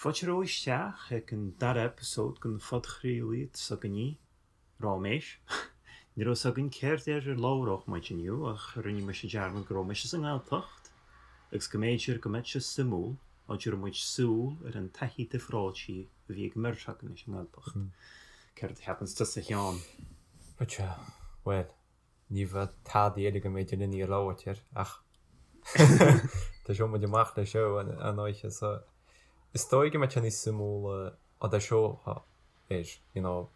Fáilte romhaibh isteach ag an dara eipeasóid den phodchraoladh s'againne, Ráiméis. Ní raibh 'fhios againn céard air ar labhródh muid inniu ach rinne mise dearmad go raibh mise sa nGaeltacht agus go mb'fhéidir go mbeadh sé suimiúil dá dtabharfadh muid súil ar an taithí difreáilte a bhí ag an mbeirt againn leis an nGaeltacht. Céard a cheapanns tusa a Sheáin? Bhuel, Ní bheadh tada eile go mb'fhéidir linn a labhairt air ach thoiseoidh muid amach leis seo an oíche so is dóigh go mbeidh sé níos suimiúla á dtoiseofá air, you know.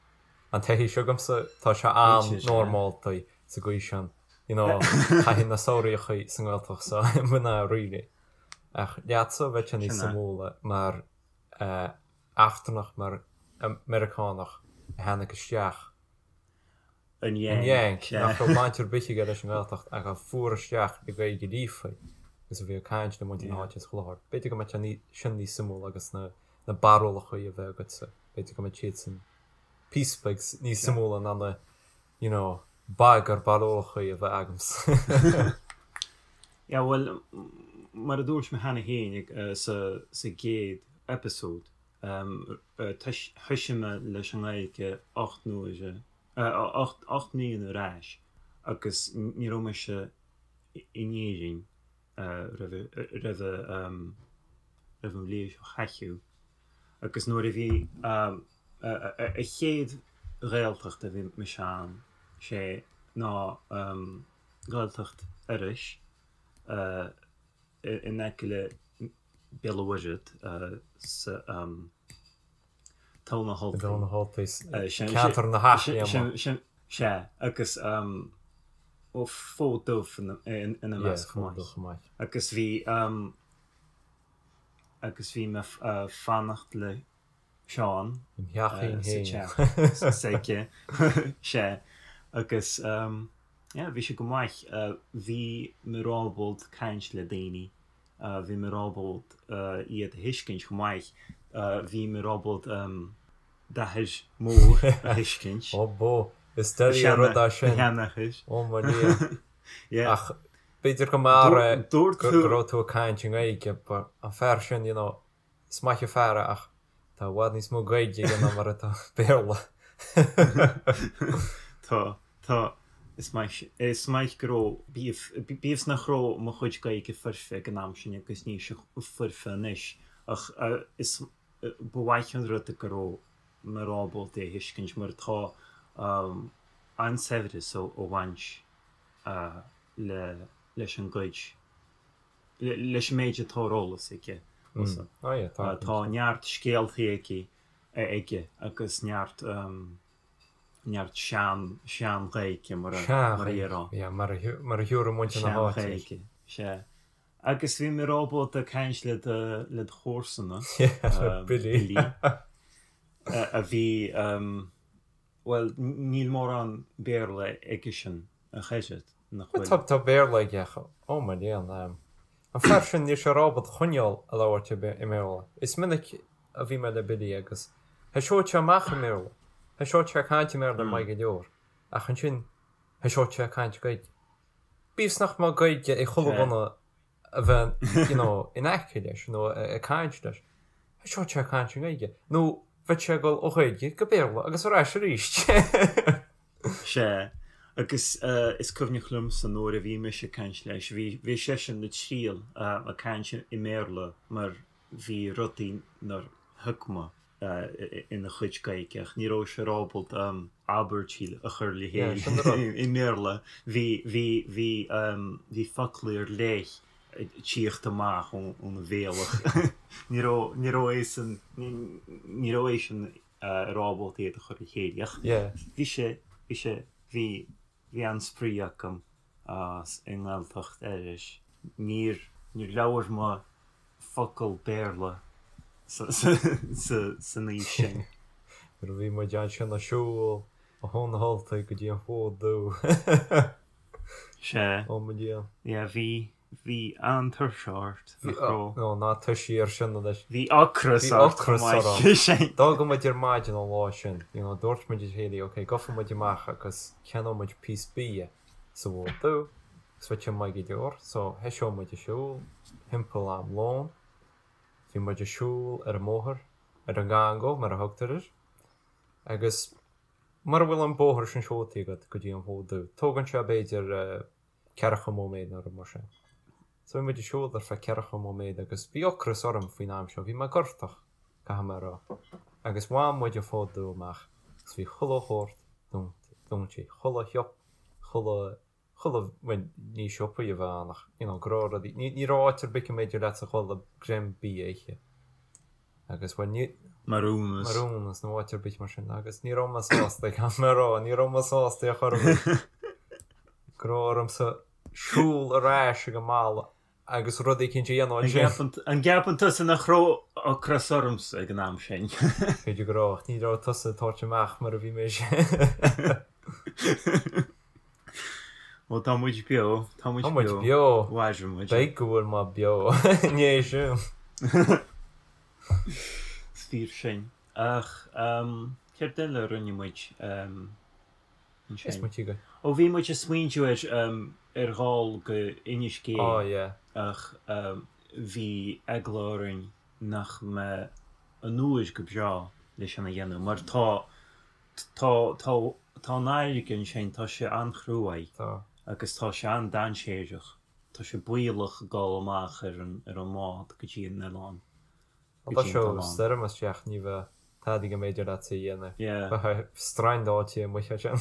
An taithí seo agamsa, tá sé an-normálta sa gcaoi sin, you know, taithí na samhraíochaí sa nGaeltacht so mná really. Ach leatsa bheadh sé níos suimiúla mar eachtrannach, mar Meiriceánach a tháinig isteach An An Yank, nach raibh baint ar bith aige leis an nGaeltacht ach a fuair isteach i Gaeilge líofa agus a bhí ag caint le muintir na háite is chuile shórt. B'fhéidir go mbeadh sé sin níos suimiúla agus na na barúlacha a bheith agatsa, b'fhéidir go mbeadh siad sin píosa beag níos suimiúla ná na you know bagar barúlacha a bheith agamsa. Yeah, bhuel, mar a dúirt mé cheana féin sa sa gcéad eipeasóid, Thoisigh mé leis an nGaeilge 8 n-uaire, 8 mbliana ar ais agus ní raibh mise in Éirinn roimh an bhliain seo chaite. Agus nuair a bhí an chéad Ghaeltacht a bhí mise ann, sé ná Gaeltacht Iorrais in aice le Béal an Mhuirthead sa Togha na hUltaí. Togha na hUltaí, ceantar na hEachléime. Sea, agus Fód Dubh ina measc chomh maith. Agus bhí agus bhí mé ag fanacht le Seán sa teach s'aige. Sea, agus yeah, bhí sé go maith. Bhí mé ábalta caint le daoine. Bhí mé ábalta iad a thuiscint chomh maith. Bhí mé ábalta d'athair mór a thuiscint. Ó bó, is doiligh an rud é sin. Ó mo Dhia. Ach b'fhéidir go mb'fhearr é go raibh tú ag caint i nGaeilge, but an fear sin, you know, Is maith an fear é ach tá i bhfad níos mó Gaeilge aige ná mar atá Béarla. Tá, tá. Is maith, is maith go raibh, bíodh, bíodh is nach raibh mo chuid Gaeilge foirfe ag an am sin agus níl sé foirfe anois ach is, ba mhaith an rud é go raibh mé ábalta é a thuiscint mar tá an-saibhreas ó bhaint le, leis an gcuid leis an méid atá ar eolas aige. Tá neart scéaltaí aici aige agus neart neart sean sean-Ghaeilge mar a mar a déarfá. Yeah, mar a mar a thiúrfaidh muintir na háite. Sean-Ghaeilge, sea. Agus bhí mé ábalta caint le do le do chomharsana, Billy, a bhí Bhuel, níl mórán Béarla aigesean ach oiread, nach bhfuil? Tá, tá Béarla aige ach, ó mo léan, an fear sin, níl sé ábalta coinneáil ag labhairt i mBéarla. Is minic a bhí mé le Billy agus thoiseodh sé amach i mBéarla, thoiseodh sé ag caint i mBéarla maith go leor, ach ansin thoiseodh sé ag caint Gaeilge. Bíodh is nach mbeadh Gaeilge ag chuile dhuine a bheith you know in aice leis nó ag caint leis. Thoiseodh sé ag caint i nGaeilge. Nó bheadh sé ag dul ó Ghaeilge go Béarla agus ar ais arís. Sea, agus is cuimhneach liomsa nuair a bhí mise ag caint leis, bhí bhí seisean ag triail ag caint i mBéarla mar bhí rudaí nár thuig mé. ina chuid Gaeilge ach ní raibh sé ábalta abairtí a chur le chéile i mBéarla. Bhí, bhí, bhí, bhí foclaí ar leith ag tíocht amach óna bhéal ach ní raibh, ní raibh eisean, ní raibh eisean ar ábalta iad a chur le chéile ach bhí sé, bhí sé, bhí, bhí an-spraoi agam i nGaeltacht Iorrais. Níor, níor labhair mé focal Béarla san aois sin. Nuair a bhí muid ansin ag siúl ó Thóin na hUltaigh go dtí an Fód Dubh. Sea. Ó mo Dhia. Yeah, bhí, bhí an-tuirse ort, nach raibh? Nó ná toisigh ar sin anois. Bhí ocras ort chomh maith. D'fhág muid ar maidin an lá sin, you know, dúirt muid le chéile, ok, gabhfaidh muid amach agus ceannóidh muid píosa bia. sa bhFód Dubh agus bheadh sé maith go leor so thoiseodh muid ag siúl thimpeall am lóin. Bhí muid ag siúl ar an mbóthar, ar an nGango mar a thugtar air, agus mura bhfuil an bóthar sin siúlta agat go dtí an Fód Dubh, tógann sé b'fhéidir ceathracha móiméad nó rud mar sin. So bhí muid ag siúl ar feadh ceathracha móiméad agus bhí ocras orm faoin am seo, bhí mé gortach, caithfidh mé a rá. Agus bhain muid an Fód Dubh amach agus bhí chuile shórt dúnta, chuile shiopa, chuile chuile, bhuel, ní siopaí a bheadh ann ach, you know, go raibh rudaí, ní, ní raibh áit ar bith go mb'fhéidir leatsa dhul le greim bídh a ithe. Agus, bhuel, ní. Marooners. Marooners nó áit ar bith mar sin agus ní raibh mé sásta, caithfidh mé a rá, ní raibh mé sásta ar chor ar bith. Go raibh ormsa siúl ar ais ag an mbaile agus rud éicint a dhéanamh ansin. An gceapann tusa nach raibh ocras ormsa ag an am sin? B'fhéidir go raibh, ach ní raibh tusa ag tabhairt amach mar a bhí mise. Bhuel, tá muid beo, tá muid beo. Tá muid beo. Mhair muid. Beidh go bhfuil mé beo. Ní é sin. Is fíor sin. Ach céard eile a rinne muid ansin? Ó, bhí muid ag smaointiú ar ar dhul go Inis Géidh. Ó, yeah. Ach bhí eagla orainn nach mbeadh an uair go breá leis sin a dhéanamh mar tá Tá, tá, tá an fharraige ansin, tá sé an-chruaidh. Tá. Agus tá sé an-dainséarach. Tá sé baolach dul amach ar an, ar an mbád go dtí an oileán. Go dtí an t-oileán. Stoirm isteach, ní bheadh tada go mb'fhéidir leat a dhéanamh. Yeah. Bheifeá strandáilte amuigh ansin.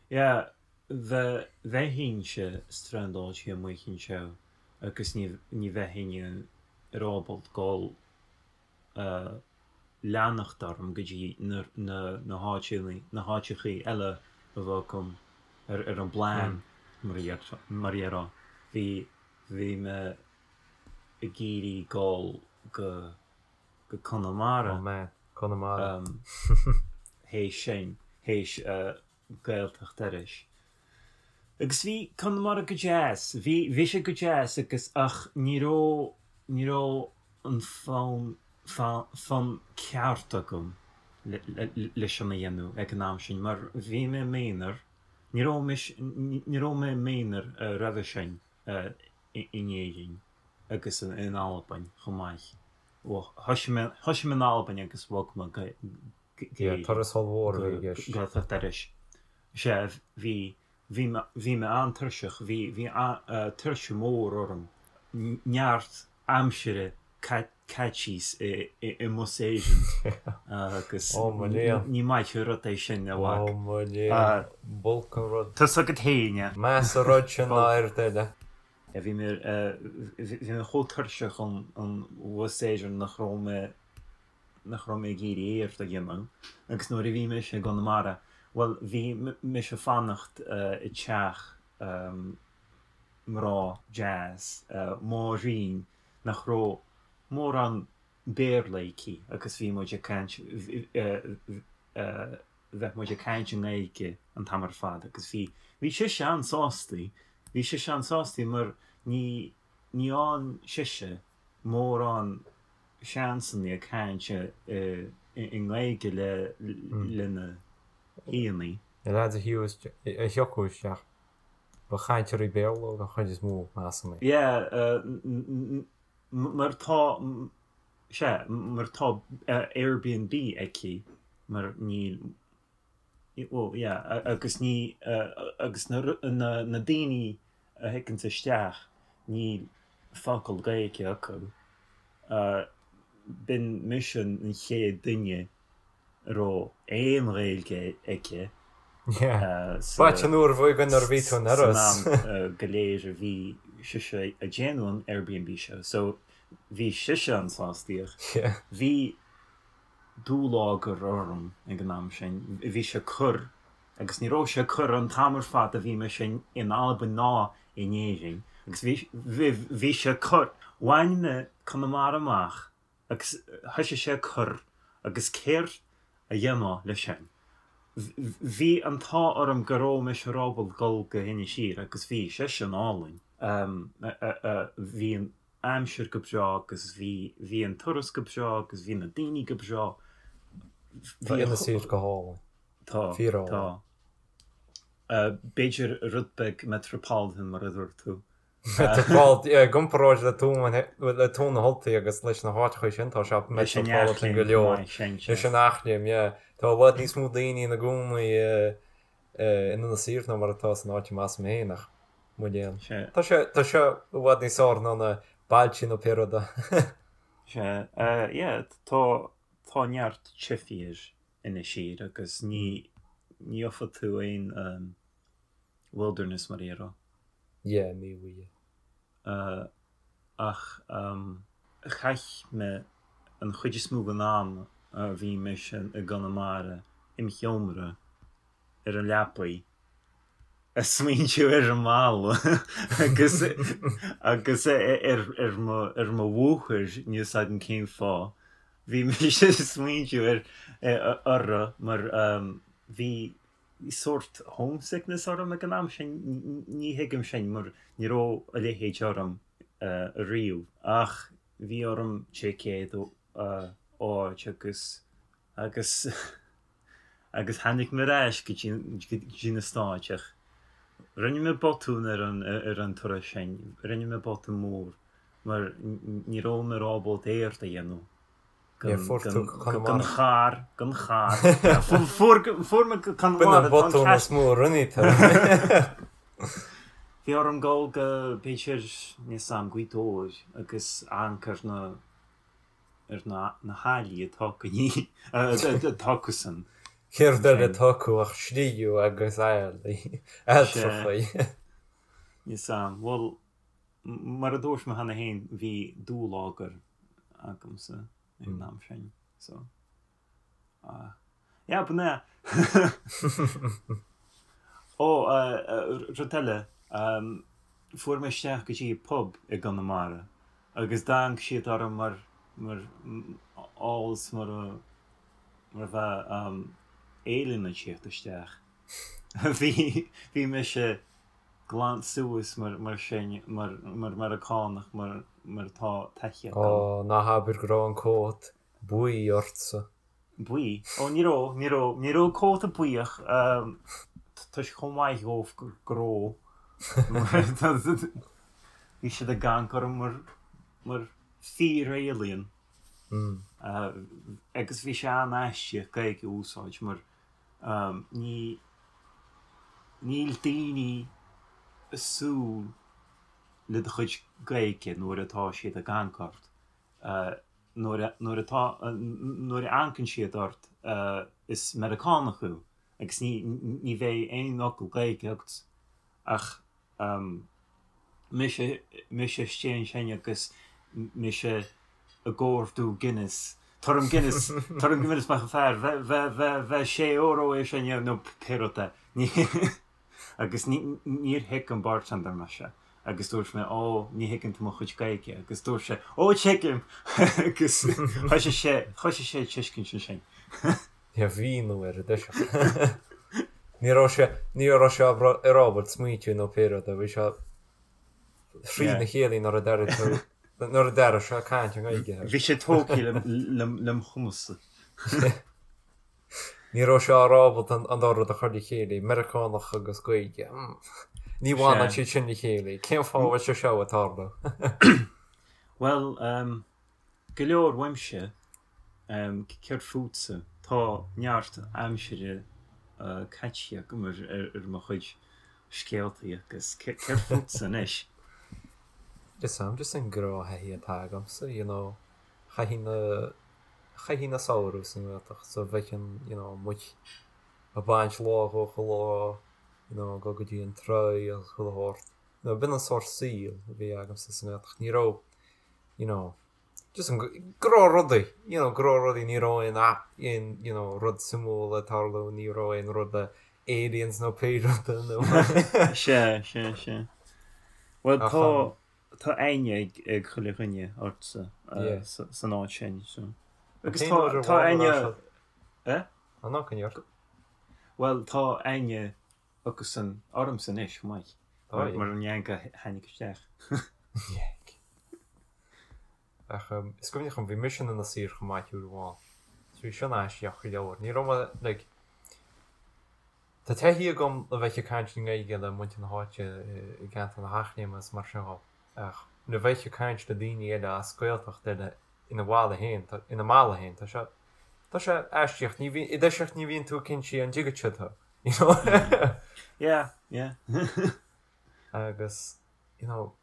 Yeah, bhe, bheinn-se strandáilte amuigh anseo agus ní, ní bheinn ar ábalta dul leanacht orm go dtí na háiteanna, na háiteachaí eile a bheadh agam ar an bplean, mar a déarfá. Bhí, bhí mé ag iarraidh dul go, go Conamara. Oh man, Conamara. Théis sin, théis Gaeltacht Iorrais. Agus bhí Conamara go deas, bhí, bhí sé go deas agus, ach ní raibh, ní raibh an fonn, fonn ceart agam le, le sin a dhéanamh ag an am sin mar bhí mé i m'aonar, ní raibh mise, ní raibh mé i m'aonar roimhe sin in Éirinn agus in Albain chomh maith. Bhuel, thoisigh mé, thoisigh mé in Albain agus bhog mé go, Yeah, turas ollmhór a bhí i gceist. Gaeltacht Iorrais. Sea, bhí, bhí mé, bhí mé an-tuirseach, bhí, bhí tuirse mór orm, neart aimsire caite i mbus Éireann agus Ó mo léan. ní maith an rud é sin, a mhac. Ó mo léan, b'olc an rud. Tá's agat féin é. Measa rud sin ná oiread eile. Bhí mé, bhí mé chomh tuirseach ón bhus Éireann nach raibh mé nach raibh mé ag iarraidh aon rud a dhéanamh agus nuair a bhí mise i gConamara, bhuel, bhí mise ag fanacht i dteach mná deas, Máirín, nach raibh mórán Béarla aici agus bhí muid ag caint, bheadh muid ag caint i nGaeilge an t-am ar fad agus bhí, bhí sise an-sásta, bhí sise an-sásta mar ní, ní fhaigheann sise mórán seansanna ag caint i nGaeilge lena haíonna. Na lads a thiocfadh isteach, ba chainteoirí Béarla den chuid is mó, measaim. Yeah, mar tá, sea, mar tá Airbnb aici, mar níl, well, yeah, agus ní, agus na daoine a thigeanns isteach, níl focal Gaeilge acu. B'in mise an chéad duine a raibh aon Ghaeilge aici sa B'ait an uair bhuí nuair a bhí tú in Iorras. san am go léir a bhí sise ag déanamh an Airbnb seo. So bhí sise an-sásta ach bhí dúlagar orm ag an am sin. Bhí sé ag cur agus ní raibh sé ag cur an t-am ar fad a bhí mise in Albain ná in Éirinn agus bhí bhí sé ag cur. Bhain mé Conamara amach agus thoisigh sé ag cur agus céard a dhéanfá leis sin? Bhí an t-ádh orm go raibh mise ábalta dul go hInis Oírr agus bhí sé sin álainn. Bhí an aimsir go breá agus bhí bhí an turas go breá agus bhí na daoine go breá. Tá Inis Oírr go hálainn. Tá, tá. B'fhéidir rud beag metropolitan mar a dúirt tú. Metropolitan, yeah, i gcomparáid le Tuaim, le Tuaim na hUltaí agus leis na háiteacha sin, tá sé Leis an metropolitan go Eachléim chomh leor. maith, sin, Leis sea. an Eachléim, yeah. Tá i bhfad níos mó daoine ina gcónaí in Inis Oírr ná mar atá san áit a mb'as mé féin, ach mo léan. Sea. Tá sé, tá sé i bhfad níos fearr ná na bailte nó pé rud é. Sea, yeah, tá, tá neart teifigh ar Inis Oírr agus ní, ní gheofaidh tú aon wilderness mar a déarfá. Yeah, ní bhfaighidh. Ach chaith mé an chuid is mó den am a bhí mise i gConamara im sheomra ar an leapaidh ag smaointiú ar an mbaile agus agus ar ar mo ar mo mháthair, níl 'fhios agam cén fáth. Bhí mise ag smaointiú ar orthu mar bhí sórt homesickness orm ag an am sin, ní thuigim sin mar ní raibh a leithéid orm ariamh ach bhí orm ticéad a fháilt agus agus agus tháinig mé ar ais go dtí go dtí na Stáit ach rinne mé botún ar an ar an turas sin, rinne mé botún mór mar ní raibh mé ábalta éacht a dhéanamh. Yeah, fuair tú Gan Conamara. charr, gan charr. Fuair fuair mé go B'in Conamara, an tá an botún ceart. is mó a rinne tú. Bhí orm dul go, b'fhéidir, níl 'fhios a'm, Gaoth Dobhair agus amharc ar na, ar na, na haillí atá acu, ní, atá acusan. Céard eile atá acu ach sliabh agus aillí, ailltreachaí. Níl 'fhios a'm. Bhuel, mar a dúirt mé cheana féin, bhí dúlagar agamsa ag an am sin so yeah b'in é. Ó rud eile, fuair mé isteach go dtí pub i gConamara agus d'amharc siad orm mar mar amhail is mar a mar a bheadh alien ag tíocht isteach. Bhí bhí mise glan suas mar mar sin, mar mar Meiriceánach, mar mar atá taithí agam. Ó, ná habair go raibh an cót buí ortsa. Buí? Ó, ní raibh, ní raibh, ní raibh cóta buí ach tá sé chomh maith dhóibh go raibh. Bhí siad ag amharc orm mar mar fíor-alien. Agus bhí sé an-aisteach Gaeilge a úsáid mar Ní, níl daoine ag súil le do chuid Gaeilge nuair atá siad ag amharc ort. Nuair a, nuair atá, nuair a amharcann siad ort is Meiriceánach thú agus ní, ní bheidh aon fhocal Gaeilge agat ach Mise, mise istigh ansin agus mise ag ordú Guinness. Tabhair dom Guinness, tabhair dom Guinness maith an fear, bheadh, bheadh, bheadh sé euro é sin nó pé rud é. Ní, agus ní, níor thuig an bartender mise agus dúirt mé, ó, ní thuigeann tú mo chuid Gaeilge agus dúirt sé, ó, tuigim! agus thoisigh sé, thoisigh sé ag tuiscint ansin. Níor mhíniú ar an dtoiseach. Ní raibh sé, ní raibh sé ar ábalta smaointiú nó pé rud é, bhí sé thrína chéile nuair a d'airigh tú, nuair a d'airigh sé caint i nGaeilge. Bhí sé tógtha lem chumas-sa. Ní raibh sé ar ábalta an dá rud a chur le chéile, Meiriceánach agus Gaeilge. Ní bhaineann siad sin le chéile. Cén fáth a bhfuil sé seo ag tarlú? Bhuel, Go leor uaimse, céard fútsa? Tá neart aimsire caite agam ar mo chuid scéaltaí agus céard fútsa anois? Is am just an gnáththaithí atá agamsa, you know, chaithfinn na, chaithfinn na samhradh sa nGaeltacht so bheadh an, you know, amuigh ag baint lá dhó chuile lá, you know, ag dul go dtí an tráigh agus chuile shórt. You know, b'in an sórt saoil a bhí agamsa sa nGaeltacht. Ní raibh, you know, just an gnáthrudaí, you know, gnáthrudaí, ní raibh aon aon, you know, rud suimiúil ag tarlú, ní raibh aon rud le aliens nó pé rud é nó. Sea, sea, sea. Bhuel, tá, tá aithne ag, ag chuile dhuine ortsa yeah. san áit sin, so. Agus tá, tá aithne... Eh? An ná can York? Bhuel, tá aithne acusan ormsa anois, chomh maith. Mar an Yank a tháinig isteach. Yank. Ach is cuimhneach liom, bhí mise in Inis Oírr chomh maith uair amháin. So bhí sin aisteach go leor. Ní raibh mé, like. Tá taithí agam le bheith ag caint i nGaeilge le muintir na háite i gceantar na hEachléime is mar sin dhó, ach le bheith ag caint le daoine eile as Gaeltacht eile ina bhaile féin, ina mbaile féin, tá sé, tá sé aisteach, ní bhíonn, i dtoiseacht ní bhíonn tú cinnte an dtuigeann siad thú, you know. Yeah, yeah. Agus, you know,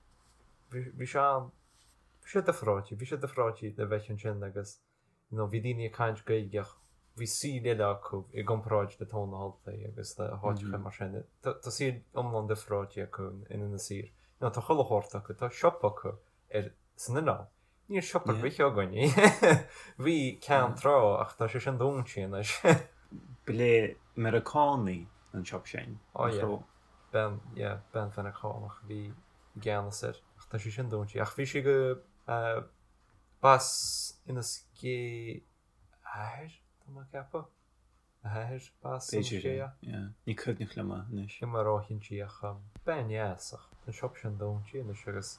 bhí, bhí sé an, bhí sé difreáilte, bhí sé difreáilte le bheith ansin agus, you know, bhí daoine ag caint Gaeilge ach bhí saol eile acu i gcomparáid le Tóin na hUltaí agus le háiteacha mar sin. Tá tá saol iomlán difreáilte acu in Inis Oírr. You know, tá chuile shórt acu, tá siopa acu ar san oileán. Níl siopa ar bith againn. Bhí ceann tráth ach tá sé sin dúnta anois. Ba le Meiriceánaigh an siopa sin, Ó nach yeah. raibh? Bean, yeah, bean Mheiriceánach a bhí i gceannas air ach tá sé sin dúnta. Ach bhí sé go eh, B'as Inis Gé a hathair, tá mé ag ceapadh. A hathair, b'as Inis B'fhéidir Gé é, yeah. Ní cuimhneach liom é anois. Níl mé róchinnte ach bean dheas ach tá an siopa sin dúnta anois agus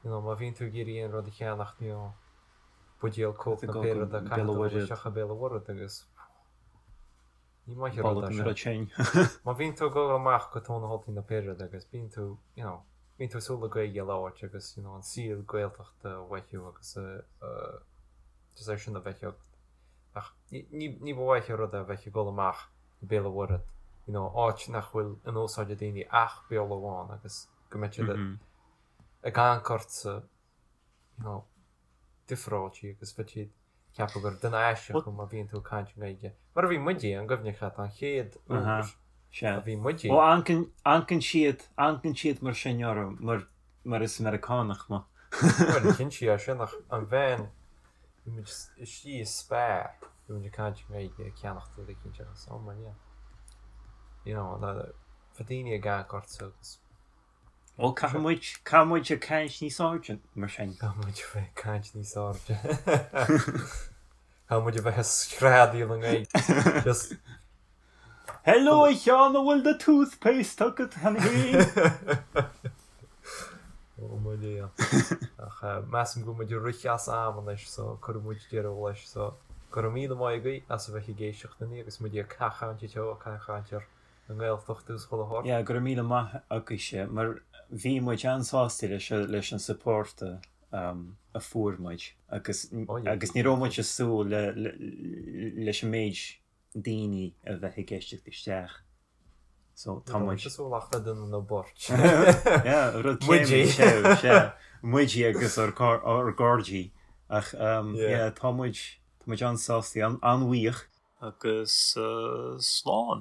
you know má bhíonn tú ag iarraidh aon rud a cheannacht you know buidéal Coke nó pé rud é caithfidh tú dul isteach go Béal an Mhuirthead agus ní maith an rud é sin. Má bhíonn tú ag dul amach go Tóin na hUltaí nó pé rud agus bíonn tú you know bíonn tú ag súil le Gaeilge a labhairt agus you know an saol Gaeltachta a mhothú agus just é sin a bheith agat. Ach ní ní ba mhaith an rud é a bheith ag dul amach go Béal an Mhuirthead you know áit nach bhfuil in úsáid ag daoine ach Béarla amháin agus go mbeidh siad ag amharc ortsa you know difreáilte agus bheadh siad ag ceapadh gur duine aisteach thú má bhíonn tú ag caint i nGaeilge. Mar a bhí muide, an gcuimhneach leat an chéad uair a bhí muide. Ó, amharcann siad, amharcann siad mar sin orm, mar, mar is Meiriceánach mé. Bhuel, cinnte é sin ach an bhean, bhí muid istigh i Spar, bhí muid ag caint i nGaeilge ag ceannacht rud eicínt agus, oh my yeah. You know, bheadh daoine ag amharc ortsa agus. Ó, caithfidh muid, caithfidh muid ag caint níos airde, mar sin. Caithfidh muid a bheith ag caint níos airde. Caithfidh muid a bheith ag screadaíl i nGaeilge. Just. Hello, a Sheáin, an bhfuil do toothpaste agat cheana féin? Ó mo léan. Ach measaim go bhfuil muid ag rith as am anois so cuirfidh muid deireadh leis so go raibh míle maith agaibh as a bheith ag éisteacht linn agus muid ag cachaint anseo, ag cachaint ar an nGaeltacht agus chuile shórt. Yeah, go raibh míle maith agaibhse, mar bhí muid an-sásta leis leis an support a a fuair muid agus Oh yeah. agus ní raibh muid ag súil le leis an méid daoine a bheith ag éisteacht isteach. So tá muid ag súil ach le duine nó beirt. Yeah, rud Muidí. céanna, sea, sea. Muidí agus ár gcár- ár gcairde. Ach um, Yeah. yeah, tá muid tá muid an-sásta, an- an-bhuíoch. Agus slán.